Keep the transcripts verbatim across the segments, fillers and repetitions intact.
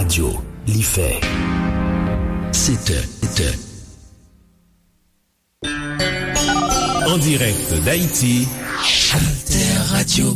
Radyo, li fè sèt è, sèt è. En direct d'Haïti, Alter Radio.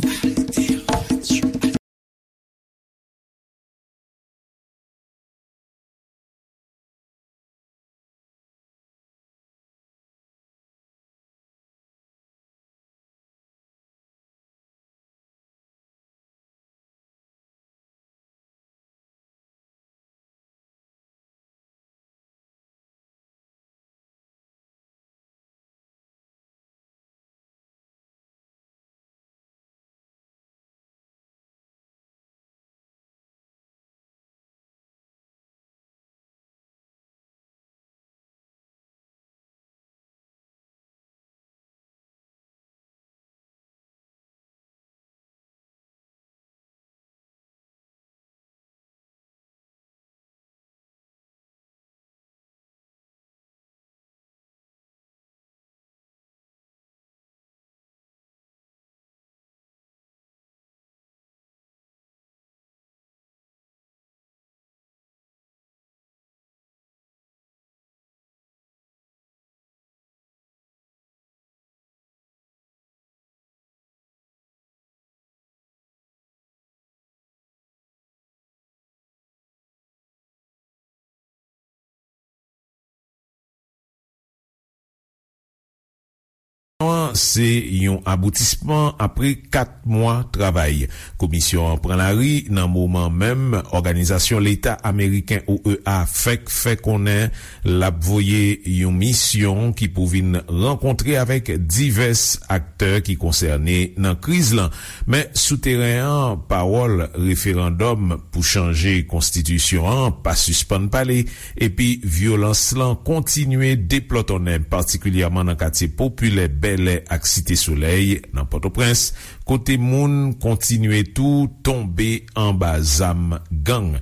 Se yon aboutisman apre kat mwa travay. Komisyon an pran lari nan moman menm òganizasyon leta ameriken, O E A, fèk fè konnen l ap voye yon misyon ki pou vin rankontre avèk divès aktè ki konsène nan kriz lan. Men sou teren an, pawòl referandòm pou chanje konstitisyon an pa sispann pale, epi vyolans lan kontinye deplòtonnen, patikilyèman nan katye popilè Bèlè ak Site Solèy nan Pòtoprens, kote moun kontinye tou tonbe anba zam gang.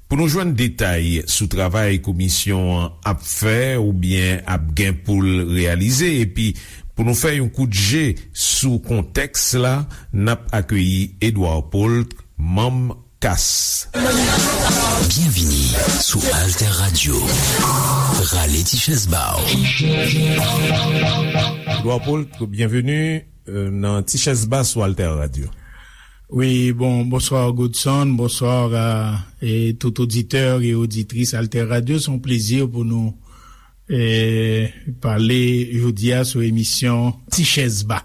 Pou nou jwenn detay sou travay komisyon an ap fè oubyen ap gen pou l reyalize, epi pou nou fè yon kout je sou kontèks la, n ap akeyi Edouard Paul, manm kas. Byenvini sou Alter Radio. Rale ti chèz ba w. Edouard Paul, byenveni, euh, nan Ti Chèz Ba sou Alter Radio. Wi, bon, bonswa Godson, bonswa a, e tout oditè e oditris Alter Radio. Se yon plezi pou nou e, pale jodi a sou emisyon Ti Chèz Ba.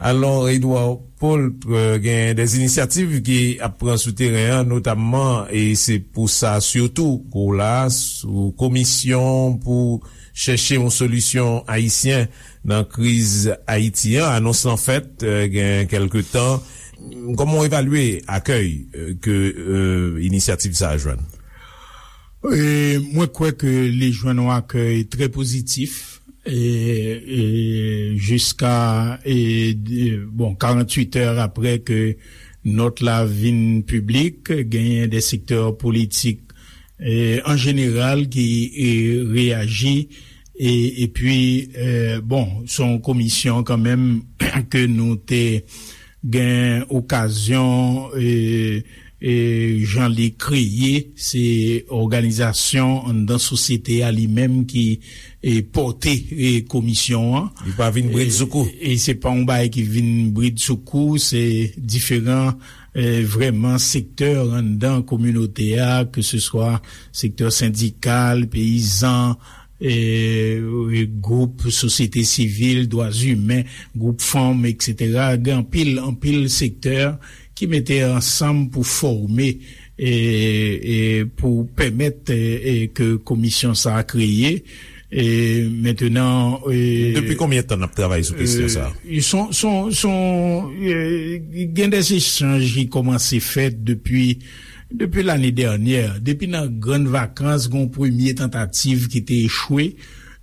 Alò, Edouard Paul, e, gen de inisyativ ki ap pran sou teren an, notamman, e se pou sa sitou ke w la, sou komisyon pou chèche yon solisyon ayisyen nan kriz Ayiti an. Anons lan fèt, e, gen kèlke tan. Kòman w evalye akèy, e, ke, e, inisyativ sa a jwenn? E, mwen kwè ke li jwenn yon akèy trè pozitif, e, e, jiska, e, de, bon, karanntuit è apre ke nòt la vin piblik, genyen de sektè politik, e, an jeneral ki, e, reyaji, e, epi, e, bon, se yon komisyon kanmenm ke nou te gen okazyon, e, e, jan li kreye, se òganizasyon anndan sosyete a li menm ki, e, pòte, e, komisyon an. Li pa vin bridsoukou. E, e se pa yon bagay ki vin bridsoukou, se diferan, e, vrèman sektè anndan kominote a, ke se swa sektè sendikal, peyizan, e, e, gwoup sosyete sivil, dwa imen, gwoup fanm, etsetera. Gen anpil, anpil sektè ki mete ansanm pou fòme, e, e, pou pèmèt, e, e, ke komisyon sa a kreye. E, mentenan, e, depi konbyen tan n ap travay sou kesyon sa a? E, son, son, son, e, gen de echanj ki kòmanse fèt depi, depi lane dènyè, depi nan grann vakans, gen yon premye tantativ ki te echwe.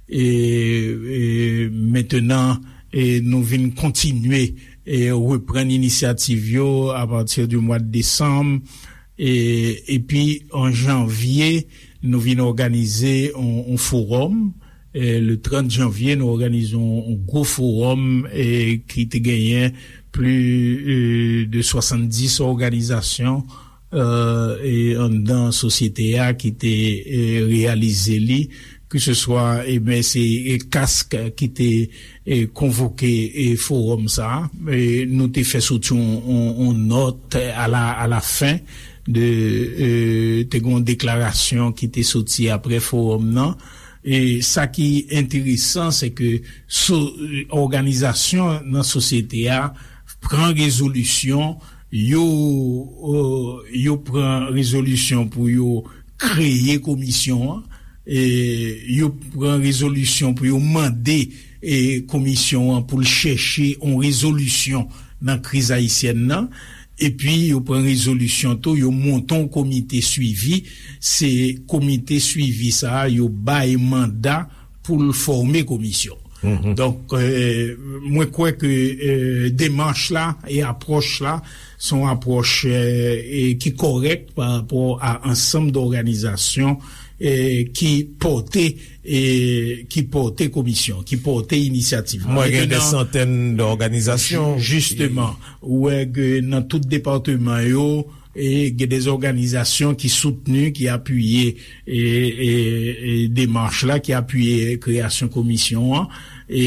E, e, mentenan, e, nou vin kontinye, e, reprann inisyativ yo apati di mwa de desanm. E, epi, an janvye, nou vin òganize yon, yon fowòm. E, le trant janvye, nou òganize yon, yon gwo fowòm, e, ki te genyen plis, e, de swasanndis òganizasyon e anndan sosyete a ki te e reyalize li, keseswa e men se e kask ki te e konvoke e fowòm sa a. E nou te fè soti yon, yon, yon nòt a la, a la fen de e te gen yon deklarasyon ki te soti apre fowòm nan. E sa ki enteresan, se ke so, òganizasyon nan sosyete a pran rezolisyon, yo, euh, yo pran rezolisyon pou yo kreye komisyon an, e yo pran rezolisyon pou yo mande e komisyon an pou l chèche yon rezolisyon nan kriz ayisyèn nan. Epi yo pran rezolisyon tou, yo monte yon komite swivi. Se komite swivi sa a yo bay manda pou l fòme komisyon. Donk, euh, mwen kwè ke euh, demach la e apwòch la se yon apwòch euh, e ki kòrèk pa rapò a ansanm dòganizasyon e ki pòte e ki pòte komisyon, ki pòte inisyativ la. Mwen gen de Mentnan, santèn dòganizasyon. Jisteman, ou wè ke nan tout depatman yo, e gen de òganizasyon ki soutni, ki apiye e, e, e demach la, ki apiye kreyasyon komisyon an. E,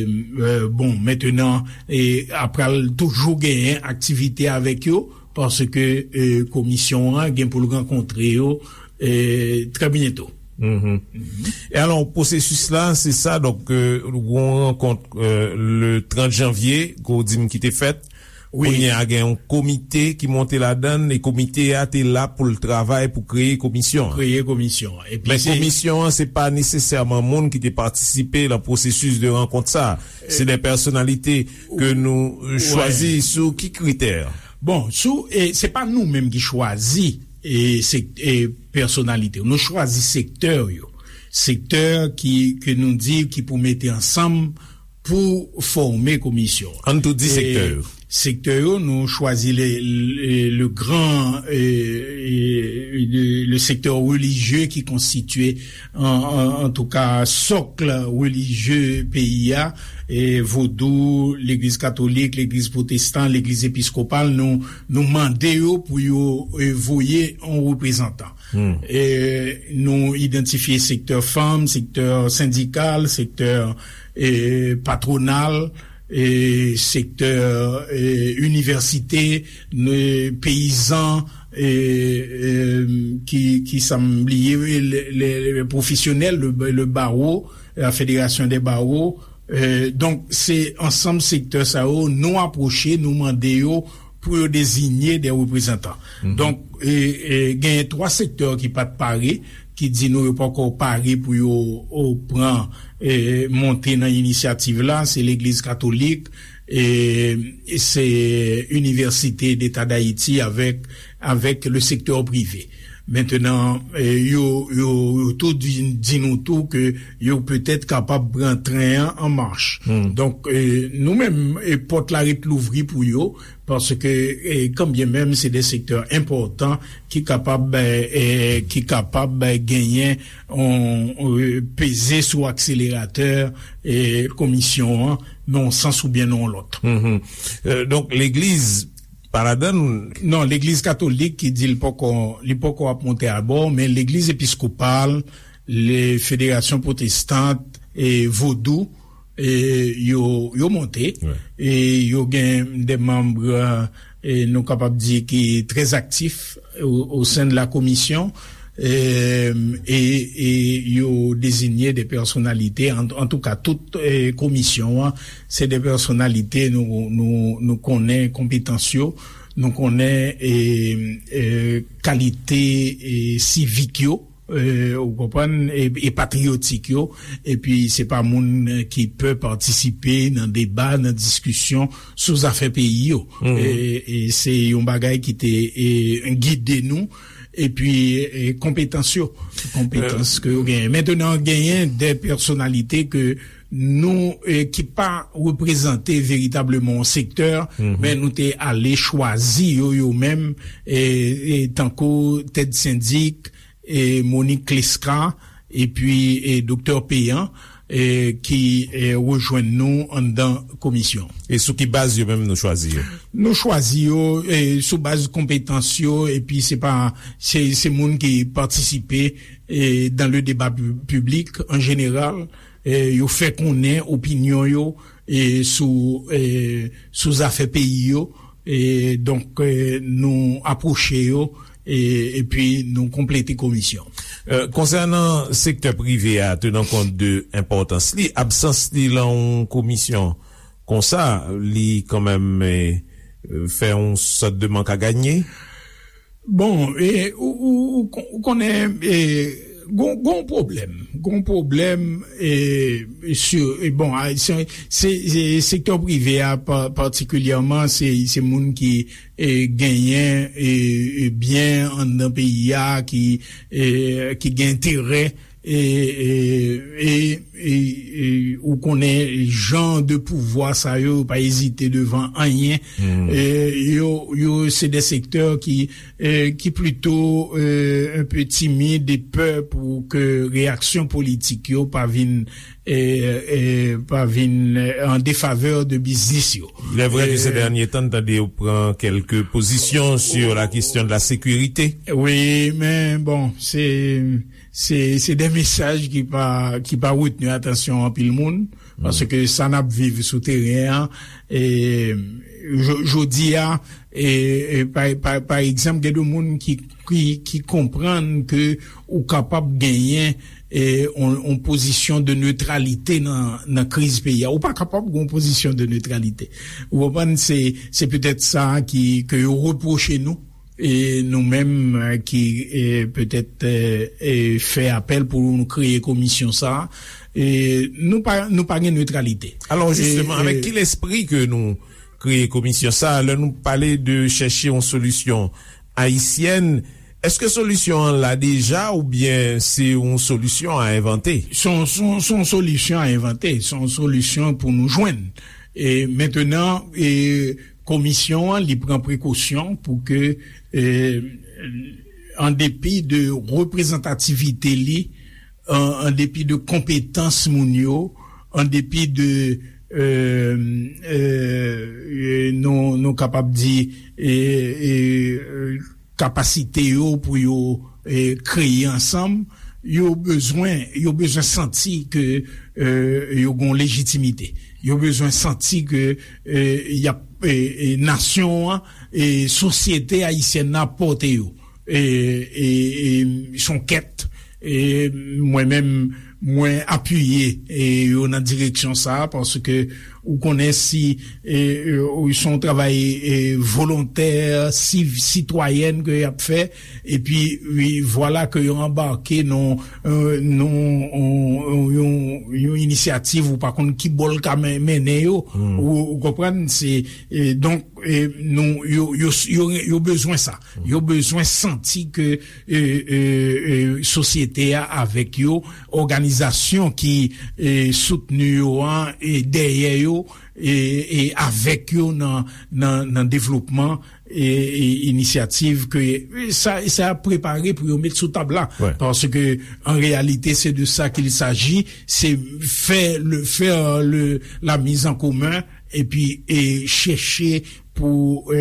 e, bon, mentnan, e, apral toujou genyen aktivite avèk yo, paske e, komisyon an gen pou l rankontre yo e, trè byento. E alò, pwosesis la, se sa, donk, euh, yon rankont euh, le trant janvye, ke w di m ki te fèt. Wi. Kounye a gen yon komite ki monte ladan l, e komite a te la pou l travay pou kreye komisyon an. Kreye komisyon an. Epi Men se komisyon an, se pa nesesèman moun ki te patisipe nan pwosesis de rankont sa. Se de pèsonalite ke nou euh, chwazi sou ki kritè? Bon, sou, e, se pa nou menm ki chwazi e, sek, e, pèsonalite yo. Nou chwazi sektè yo. Sektè ki, ke nou di ki pou mete ansanm pou fòme komisyon. An tou di sektè yo. Sektè yo, nou chwazi le, le, le gran, e, e, le, le sektè relijye ki konstitye an, an, antouka, sòk relijye peyi a, e, vodou, legliz katolik, legliz pwotestan, legliz episkopal, nou, nou mande yo pou yo e, voye yon reprezantan. E, nou idantifye sektè fanm, sektè sendikal, sektè e, patwonal, e, sektè e, inivèsite, e, peyizan, e, e, ki, ki sa m bliye, le, le, le pwofesyonèl, le, le bawo, la fédération des barreaux. E, donk, se ansanm sektè sa yo, nou apwoche, nou mande yo pou yo deziye de reprezantan. Donk, e, e, genyen twa sektè ki pa t pare, ki di nou yo poko pare pou yo o, pran e, monte nan inisyativ la, se legliz katolik, e, e se Université d'État d'Haïti avèk, avèk le sektè prive. Mentnan, e, yo, yo, yo tou di, di nou tou ke yo petèt kapab pran tren an an mach. Donk, e, nou menm, e, pòt la ret louvri pou yo, paske, e, kanbyen menm se de sektè enpòtan ki kapab, e, e, ki kapab, e, genyen, on, on, peze sou akseleratè, e, komisyon an, nan yon sans oubyen nan yon lòt. E, donk, legliz pa ladan l? Non, legliz katolik ki di l poko, li poko ap monte abò, men legliz episkopal, le fédération protestante e vodou, e yo, yo monte. E yo gen de manm, e nou kapab di ki trè aktif o, o sen de la komisyon. E, e, e yo deziye de pèsonalite, an, antouka, tout e, komisyon an, se de pèsonalite nou, nou, nou konnen konpetans yo, nou konnen e, e, kalite e, sivik yo, e, ou konprann, e, e patriyotik yo, epi se pa moun ki pè patisipe nan deba, nan diskisyon sou zafè peyi yo. E, e se yon bagay ki te e, gide nou, epi e, konpetans yo, konpetans ke yo genyen. Mentnan, genyen de pèsonalite ke nou, e, ki pa reprezante veritableman yon sektè, men nou te ale chwazi yo, yo menm, e, e tankou Ted Syndic, e Monique Clesca, epi e Doktè Péan, e, ki e, rejwenn nou anndan komisyon. E sou ki baz yo menm nou chwazi yo? Nou chwazi yo e, sou baz konpetans yo, epi se pa se, se moun ki patisipe e, dans le débat pu- public en général. E, yo fè konnen opinyon yo e, sou e, sou zafè peyi yo. E, donk e, nou apwoche yo e, epi nou konplete komisyon. E, konsènan sektè prive a, tenan kont de enpòtans li, absans li lan yon komisyon konsa, li kanmenm e, fè yon sòt de mank a ganye? Bon, e, ou, ou, ou kon- ou konnen e, gon, gon pwoblèm, gon pwoblèm e, e, si, e, bon, a, se, se, se sektè prive a pa- patikilyèman, se, se moun ki e, genyen e, e, byen anndan peyi a, ki e, ki gen enterè e, e, e, e, e, ou konnen jan de pouvwa sa yo, yo pa ezite devan anyen. E, yo, yo se de sektè ki e, ki plito e, un peu timid e pè pou ke reyaksyon politik yo pa vin e, e, pa vin e, en défaveur de biznis yo. Il est vrai que ces E, derniers temps n tande yo pran kèlke pozisyon sur la question de la sécurité. Wi, men bon, se se se de mesaj ki pa ki pa retni atansyon anpil moun, paske sa n ap viv sou teren an e, jo- jodi a e, e, pa, pa, pa egzanp, gen de moun ki ki, ki konprann ke ou kapab genyen e, on, on pozisyon de netralite nan, nan kriz peyi a. Ou pa kapab gen on pozisyon de netralite. Ou konprann? Se, se petèt sa ki, ke yo repwoche nou. E nou menm e, ki e, petèt e, e, fè apèl pou nou kreye komisyon sa a, e nou pa, nou pa gen netralite. Alò, jisteman, avèk ki lespri ke nou kreye komisyon sa a, lè nou pale de chèche yon solisyon ayisyèn, èske solisyon an la deja oubyen se yon solisyon a envante? Se yon, se yon, se yon solisyon a envante, se yon solisyon pou nou jwenn. E mentenan, e komisyon an, li pran prekosyon pou ke, e, an depi de reprezantativite li, an, an depi de konpetans moun yo, an depi de, e, e, e, nou, nou kapab di, e, e, e, kapasite yo pou yo e, kreye ansanm, yo bezwen, yo bezwen santi ke e, yo gen lejitimite. Yo bezwen santi ke e, y ap, e, e, nasyon an, e, sosyete ayisyèn nan ap pòte yo. E, e, e, se yon kèt, e, mwen menm, mwen apiye e, yo nan direksyon sa a, paske ou konnen si e, e, se yon travay e, volontè, siv, sitwayèn ke y ap fè, epi wi, vwala ke yo anbake nan e, nan yon, yon, yon inisyativ ou pa konn ki bò l ka men- mennen yo. Ou, ou konprann? Se e, donk e, nou, yo, yo, yo, yo bezwen sa. Yo bezwen santi ke e, e, e, sosyete a avèk yo, òganizasyon ki e, soutni yo an e dèyè yo e, e avèk yo nan, nan, nan devlopman e, e inisyativ ke e, sa, sa ap prepare pou yo met sou tab la. Paske an reyalite, se de sa qu'il s'agit, se fè le, fè le, la mise en commun epi e chèche pou e,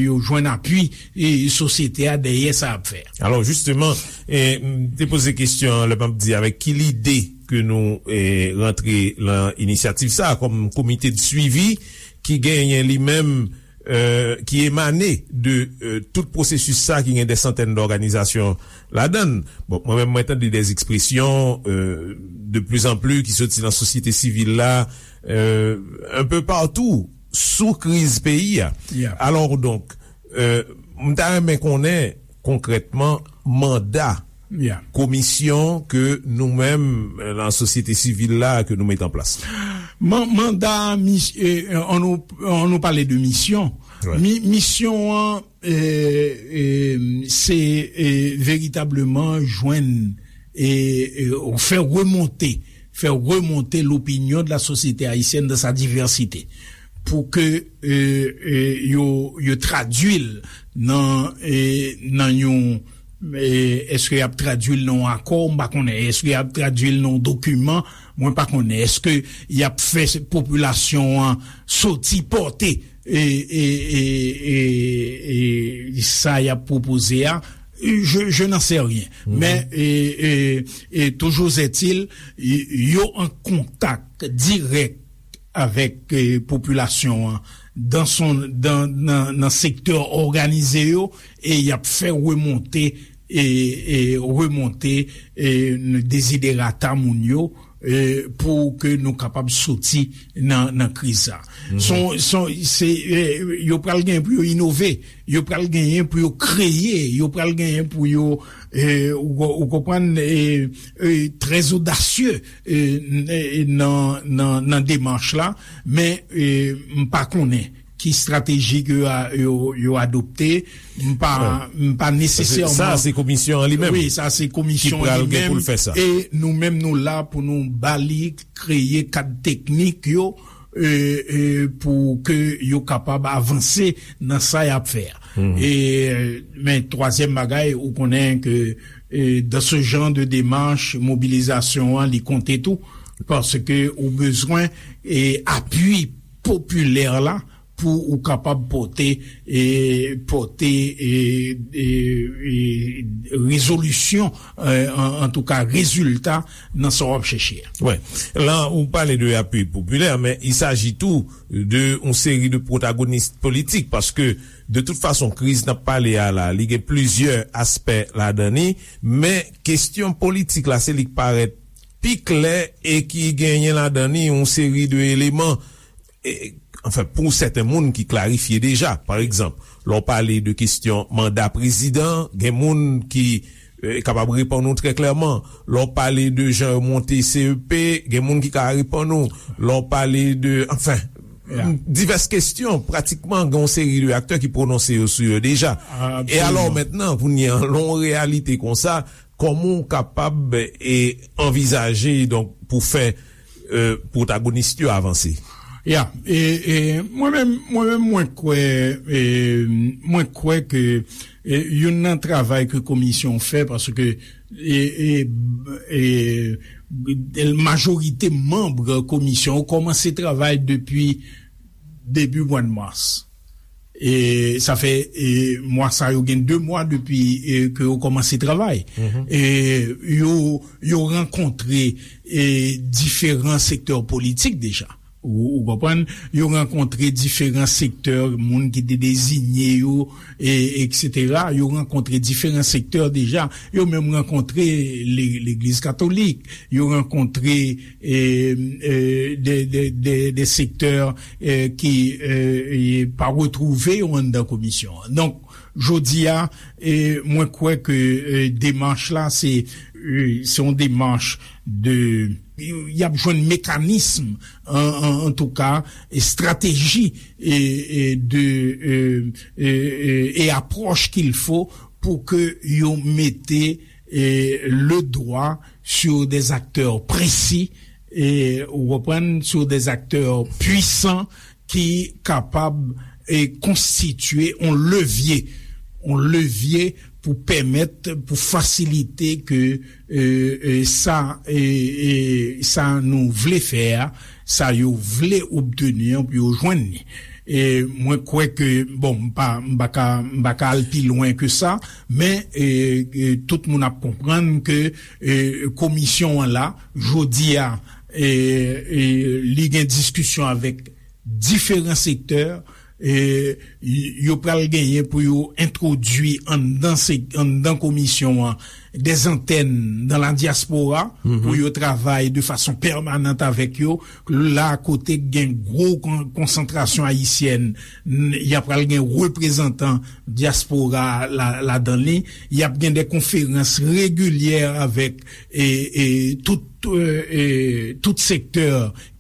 yo jwenn apui e sosyete a dèyè sa ap fè. Alò, jisteman, e, m te poze kesyon an lè m ap di avèk ki lide ke nou e, rantre lan inisyativ sa a kòm komite de swivi ki genyen li menm e, ki emane de e, tout pwosesis sa a ki gen de santèn dòganizasyon ladan l. Bon, mwen menm, mwen tande de ekspresyon e, de plus en plus ki soti nan sosyete sivil la e, un peu partout sou kriz peyi a. Alò, donk, e, m ta renmen konnen konkrètman manda komisyon ke nou menm e, nan sosyete sivil la ke nou met an plas. Man- manda, mis- e, an nou, an nou pale de misyon. Mi- misyon an e, e, se e, veritableman jwenn e, e, fè remonte, fè remonte l'opinion de la société haïtienne dans sa diversité, pou ke e, e, yo, yo tradui l nan e, nan yon E, èske y ap tradui l nan yon akò? M pa konnen. Èske y ap tradui l nan yon dokiman? Mwen pa konnen. Èske y ap fè popilasyon an soti pòte e, e, e, e, e sa y ap pwopoze a? Je, je n'en sais rien. Men, e, e, e, toujours est-il, y- yo an kontak dirèk avèk, e, popilasyon an dan son, dan, nan, nan sektè òganize yo, e y ap fè remonte, e, e remonte, e, deziderata moun yo, e, pou ke nou kapab soti nan, nan kriz sa. Son, son, se, e, yo pral genyen pou yo inove, yo pral genyen pou yo kreye, yo pral genyen pou yo, e, ou, ou konprann, e, e, trè odasye, e, n- e, nan, nan, nan demach la, men, e, m pa konnen ki estrateji ke yo, a- yo, yo adopte. M pa, m pa nesesèman. Sa se komisyon an li menm. Wi, sa se komisyon an li menm. E nou menm nou la pou nou ba li, kreye kad teknik yo, e, e, pou ke yo kapab avanse nan sa y ap fè a. E, men twazyèm bagay, ou konnen ke, e, dans ce genre de démarche, mobilizasyon an, li konte tou, paske ou bezwen, e, apui popilè la pou ou kapab pote, e, pote, e, e, e, rezolisyon, e, an, antouka, rezilta nan sa w ap chèche a. Wi. La, ou pale de apui popilè, men il s'agit tou de yon seri de pwotagonis politik, paske de tout fason, kriz n ap pale a la, li gen plizyè aspè ladan li, men kesyon politik la, se li k parèt pi klè e ki genyen ladan li yon seri de eleman, e, anfen, pou sèten moun ki klarifye deja. Pa egzanp, lè w pale de kesyon manda prezidan, gen moun ki, e, kapab reponn ou trè klèman. Lè w pale de jan yo monte C E P, gen moun ki ka reponn ou. Lè w pale de, anfen, divès kesyon, pratikman, gen yon seri de aktè ki pwononse yo sou yo deja. E alò, mentnan, kounye a, lè w reyalite konsa, kòman w kapab, e, anvizaje, donk, pou fè, e, pwotagonis yo avanse? Ya, e, e, mwen menm, mwen menm, mwen kwè, e, mwen kwè ke, e, youn nan travay ke komisyon fè, paske, e, e, e, majorite manm komisyon yo kòmanse travay depi debi mwa de mas. E sa fè, e, mwa sa yo gen de mwa depi, e, ke yo kòmanse travay. E yo, yo rankontre, e, diferan sektè politik deja. Ou, ou konprann? Yo rankontre diferan sektè, moun ki te deziye yo, e, etsetera. Yo rankontre diferan sektè deja. Yo menm rankontre le- Legliz Katolik. Yo rankontre, e, e, de, de, de, de sektè, e, ki, e, e, pa retwouve yo anndan komisyon an. Donk, jodi a, e, mwen kwè ke, e, demach la, se, e, se yon demach de, y ap jwenn mekanism, an, an, antouka, estrateji, e, e, de, e, e, e, e apwòch qu'il faut pou ke yo mete, e, le dwa sur des acteurs précis, e, ou konprann, sur des acteurs puissants ki kapab, e, konstitye yon levye, yon levye pou pèmèt, pou fasilite ke, e, e, sa, e, e, sa nou vle fè a, sa yo vle obteni an pou yo jwenn li. E mwen kwè ke, bon, m pa, m pa ka, m pa ka al pi lwen ke sa, men, e, e, tout moun ap konprann ke, e, komisyon an la, jodi a, e, e, li gen diskisyon avèk diferan sektè, e, y- yo pral genyen pou yo entwodui anndan se- anndan komisyon an des antennes dans la diaspora, pou yo travay de fason pèmanant avèk yo, la kote gen gwo kon- konsantrasyon ayisyèn, n- y ap pral gen reprezantan dyaspora la ladan li, y ap gen de konferans regilyè avèk, e, e, tout, e, e, tout sektè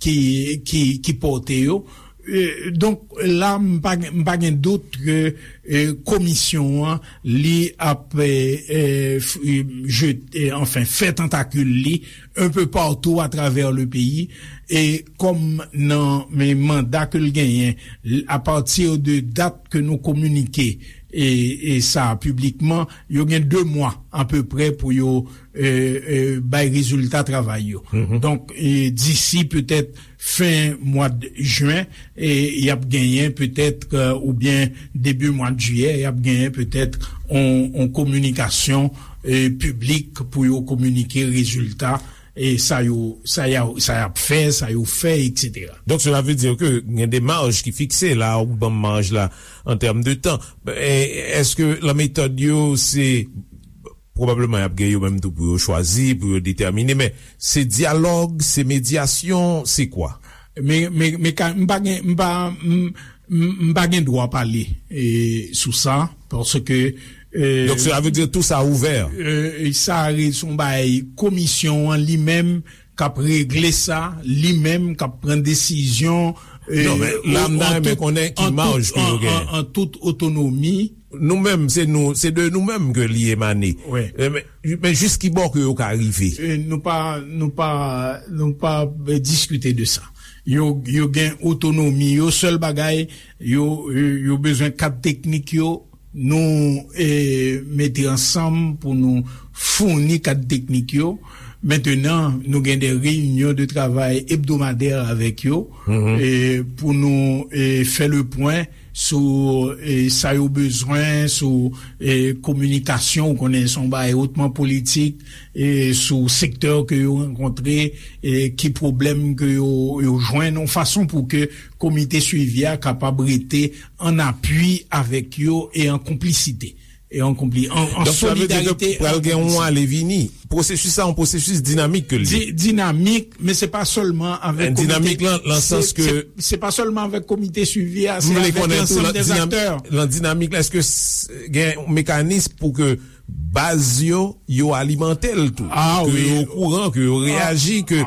ki, ki, ki pòte yo. E, donk, la, m pa gen- m pa gen dout ke, e, komisyon an, li ap, e, e, f- e, je- e, anfen, fè tantakil li un peu partout à travers le pays, e kòm nan men manda ke l genyen, l- à partir de dat ke nou kominike, e, e sa piblikman, yo gen de mwa apeprè pou yo e, e, bay rezilta travay yo. Donk, e, disi petèt fen mwa de jen, e, y ap genyen petèt, e, oubyen debi mwa de jiyè, y ap genyen petèt on, on kominikasyon e, piblik pou yo kominike rezilta e, sa yo, sa y a, sa y ap fè, sa yo fè, etsetera. Donk, cela veut dire que gen de maj ki fikse la, ou ban m maj la an tèm de tan. E, èske lan metòd yo, se pwobableman y ap gen yo menm tou pou yo chwazi, pou yo detèmine, men se dyalòg, se medyasyon, se kwa? Men, men, men ka, m pa gen, m pa, m, m, m pa gen dwa pale e, sou sa, paske e, Donk, cela veut dire tout ça ouvert. E, sa se yon bagay komisyon an li menm k ap regle sa, li menm k ap pran desizyon e, Non, men la, m ta renmen konnen ki maj ke yo genyen. An tout otonomi. Nou menm, se nou, se de nou menm ke li emane. Wi. E, men, men jis ki bò ke yo ka rive? E, nou pa, nou pa, nou pa e, diskite de sa. Yo, yo gen otonomi, yo sèl bagay, yo, yo, yo bezwen kad teknik yo, nou e, mete ansanm pou nou founi kad teknik yo. Mentenan, nou gen de reyinyon de travay ebdomadè avèk yo e, pou nou e, fè le pwen sou e, sa yo bezwen, sou e, kominikasyon, ou konnen se yon bagay otman politik, e, sou sektè ke yo rankontre, e, ki pwoblèm ke yo, yo jwenn, yon fason pou ke komite swivi a kapab rete an apui avèk yo e an konplisite. E an konpli, an, an solidarite. Donk, sa vle di ke pral gen yon ale vini. Pwosesis sa, yon pwosesis dinamik ke l ye. Di-, dinamik, men se pa sèlman avèk komite. Dinamik lan, lan sans ke se, se pa sèlman avèk komite swivi a, se avèk lansanm dè aktè. Lan dinamik la, èske s-, gen yon mekanis pou ke baz yo, yo alimante l tou? Ke yo okouran, ke yo reyaji, ke...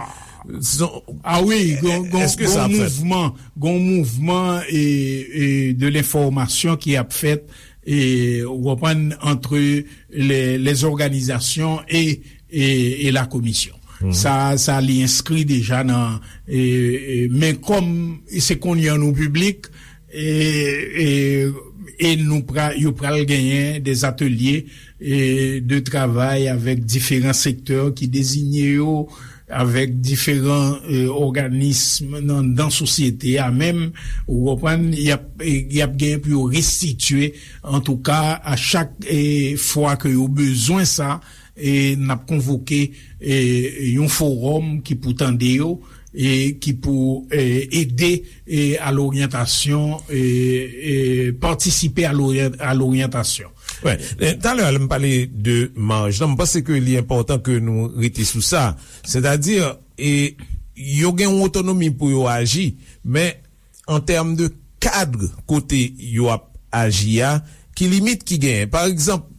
Ah wi, gon, gon, gon mouvman, gon mouvman e, e de lenfòmasyon ki ap fèt e, ou konprann, entre les, les organisations et, et, et la commission. Sa, sa li enskri deja nan, e, e, men kòm se kounye a nou piblik, e, e, e nou pra-, yo pral genyen des ateliers e, de travay avèk diferan sektè ki dezinye yo, avèk diferan e, òganism nan, nan sosyete a menm, ou konprann, y ap, e, y ap gen pou yo restitye, antouka, a chak e, fwa ke yo bezwen sa, e, n ap konvoke e, yon fowòm ki pou tande yo, e, ki pou e, ede e, a loryantasyon, e, e, patisipe a loryan-, a loryantasyon. Wè, e, talè a, lè m pale de maj lan, m panse ke li enpòtan ke nou rete sou sa. Sètadi, e, yo gen yon otonomi pou yo aji, men an tèm de kad kote yo ap aji a, ki limit ki genyen? Pa egzanp,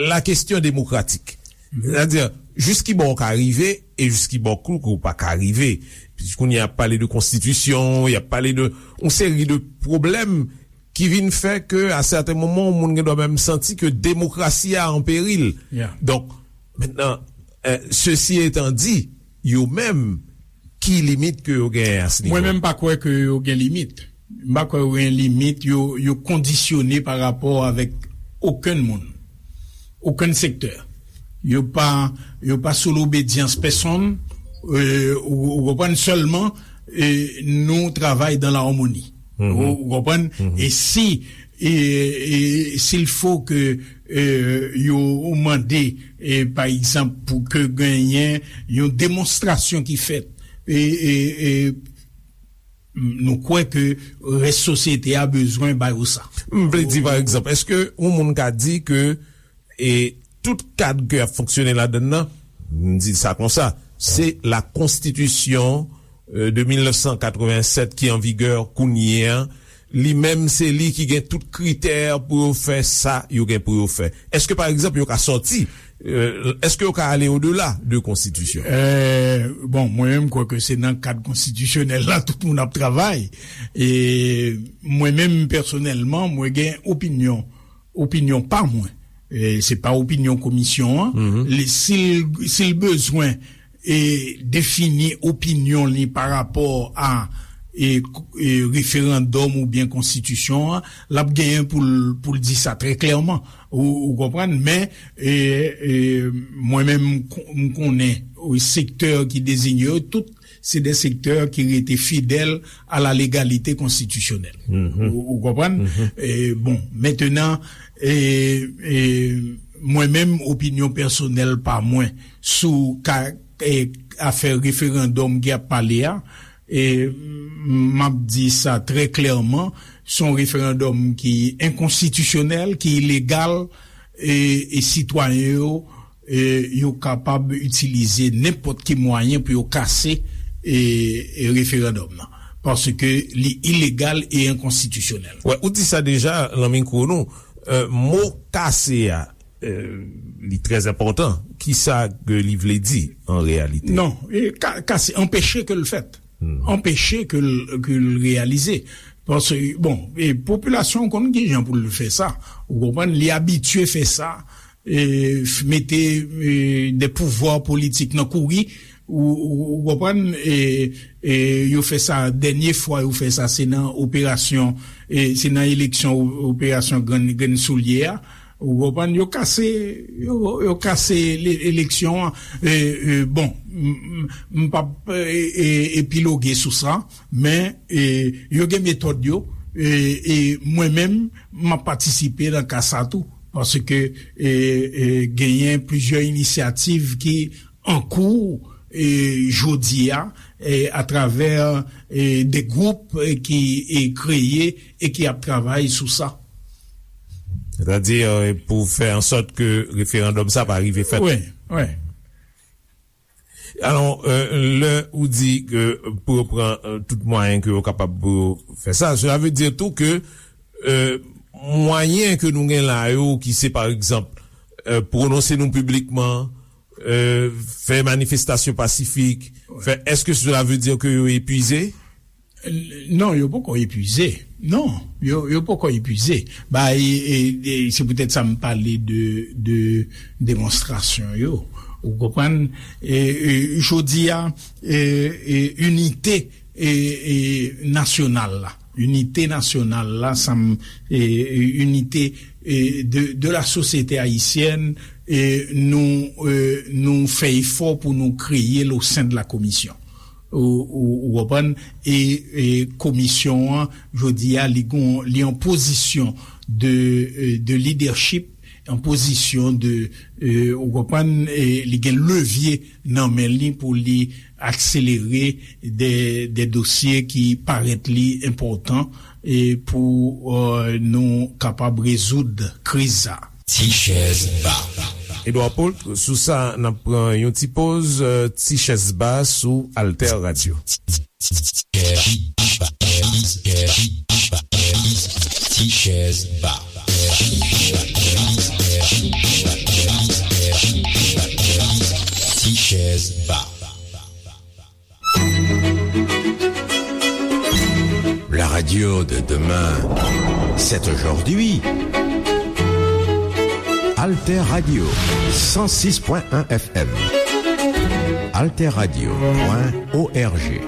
la kesyon demokratik. Sètadi, jis ki bò w ka rive e jis ki bò kou ke w pa ka rive. Kounye a y ap pale de konstitisyon, y ap pale de yon seri de pwoblèm ki vin fè ke, a sèten moman, yon moun gen dwa menm santi ke demokrasi a an peril. Donk, mentnan, e, sesi etan di, yo menm, ki limit ke yo genyen a se nivo? Mwen menm, m pa kwè ke yo gen limit. M pa kwè yo gen limit, yo, yo kondisyone pa rapò avèk okenn moun, okenn sektè. Yo pa, yo pa sou lobedyans pèsonn, e, ou, ou konprann, sèlman, e, nou travay dan la amoni. Ou, ou konprann? E si, e, e, s'il faut que, e, yo mande, e, pa egzanp, pou ke genyen yon demonstrasyon ki fèt, e, e, e, nou kwè ke rès sosyete a bezwen ba yo sa. M vle di, pa egzanp, èske yon moun ka di ke, e, tout kad ke y ap fonksyone ladann nan, m di sa konsa, se la konstitisyon, e, de mil nèf san katrevennsèt ki an vigè kounye a, li menm se li ki gen tout kritè pou yo fè sa yo gen pou yo fè. Èske, pa egzanp, yo ka sòti, e, èske yo ka ale odela de konstitisyon? E, bon, mwen menm, m kwè ke se nan kad konstitisyonèl la tout moun ap travay. E mwen menm, pèsonèlman, mwen gen opinyon, opinyon pa mwen. E se pa opinyon komisyon an. Li, si l, si l bezwen e defini opinyon li pa rapò a, e, e referandòm oubyen konstitisyon an, l ap genyen pou l, pou l di sa trè klèman. Ou, ou konprann? Men, e, e, mwen menm, m kon-, m konnen, e, sektè ki deziye yo, tout se de sektè ki rete fidèl a la légalité constitutionnelle. Ou, ou konprann? E, bon, mentenan, e, e, mwen menm, opinyon pèsonèl pa mwen sou ka, e, afè referandòm ki ap pale a, e, m ap di sa trè klèman, se yon referandòm ki enkonstitisyonèl, ki ilegal, e, e sitwayen yo, e, yo kapab itilize nenpòt ki mwayen pou yo kase, e, e referandòm nan. Paske li ilegal e enkonstitisyonèl. Wè, ou di sa deja nan mikwo nou. E, mo kase a, e, li trè enpòtan. Kisa ke li vle di an reyalite? Non, e, ka-, kase, anpeche ke l fèt. Anpeche ke l, ke l reyalize. Paske, bon, e popilasyon konn ki jan pou l fè sa. Ou konprann, li abitye fè sa, e, f-, mete, e, de pouvwa politik nan kouri, ou, ou, ou konprann, e, e, yo fè sa, dènye fwa yo fè sa, se nan operasyon, e, se nan eleksyon o-, operasyon Grenn, Grenn Soulye a, ou konprann, yo kase, yo, yo kase le-, eleksyon an. E, e, bon, m, m, m p ap, e, e, epiloge sou sa, men, e, yo gen metòd yo, e, e mwen menm, m ap patisipe nan ka sa tou, paske, e, e, genyen plizyè inisyativ ki an kou, e, jodi a, e, atravè, e, de gwoup, e, ki, e, kreye e ki ap travay sou sa. Sètadi, e, pou fè an sòt ke referandòm sa pa rive fèt. Wi, wi. Alò, e, lè ou di ke pou yo pran, e, tout mwayen ke yo kapab pou yo fè sa, cela veut dire tou ke, e, mwayen ke nou gen la yo, ki se, pa egzanp, e, pwononse nou piblikman, e, fè manifestasyon pasifik, fè, èske cela veut dire ke yo epuize? Non, yo poko epuize. Non, yo, yo poko epuize. Ba, e, e, e, se poutèt sa m pale de, de demonstrasyon yo. Ou konprann? E, e, jodi a, e, e, inite, e, e, nasyonal la. Inite nasyonal la, sa m, e, e, inite, e, de, de la sosyete ayisyèn, e, nou, e, nou fè efò pou nou kreye l o sen de la komisyon. Ou, ou, ou konprann? E, e komisyon an, jodi a, li gon, li an pozisyon de, e, de lidèchip, an pozisyon de, e, ou konprann, e li gen levye nan men li pou li akselere de, de dosye ki parèt li enpòtan, e pou, e, nou kapab rezoud kriz sa. Ti chèz ba. Edouard Paul, sou sa, n ap pran yon ti poz, e, ti chèz ba sou Alter Radio. Ti chèz ba. Ti chèz ba. La radio de demain, c'est aujourd'hui. Alter Radio, cent six point un F M. Alter Radio point O R G.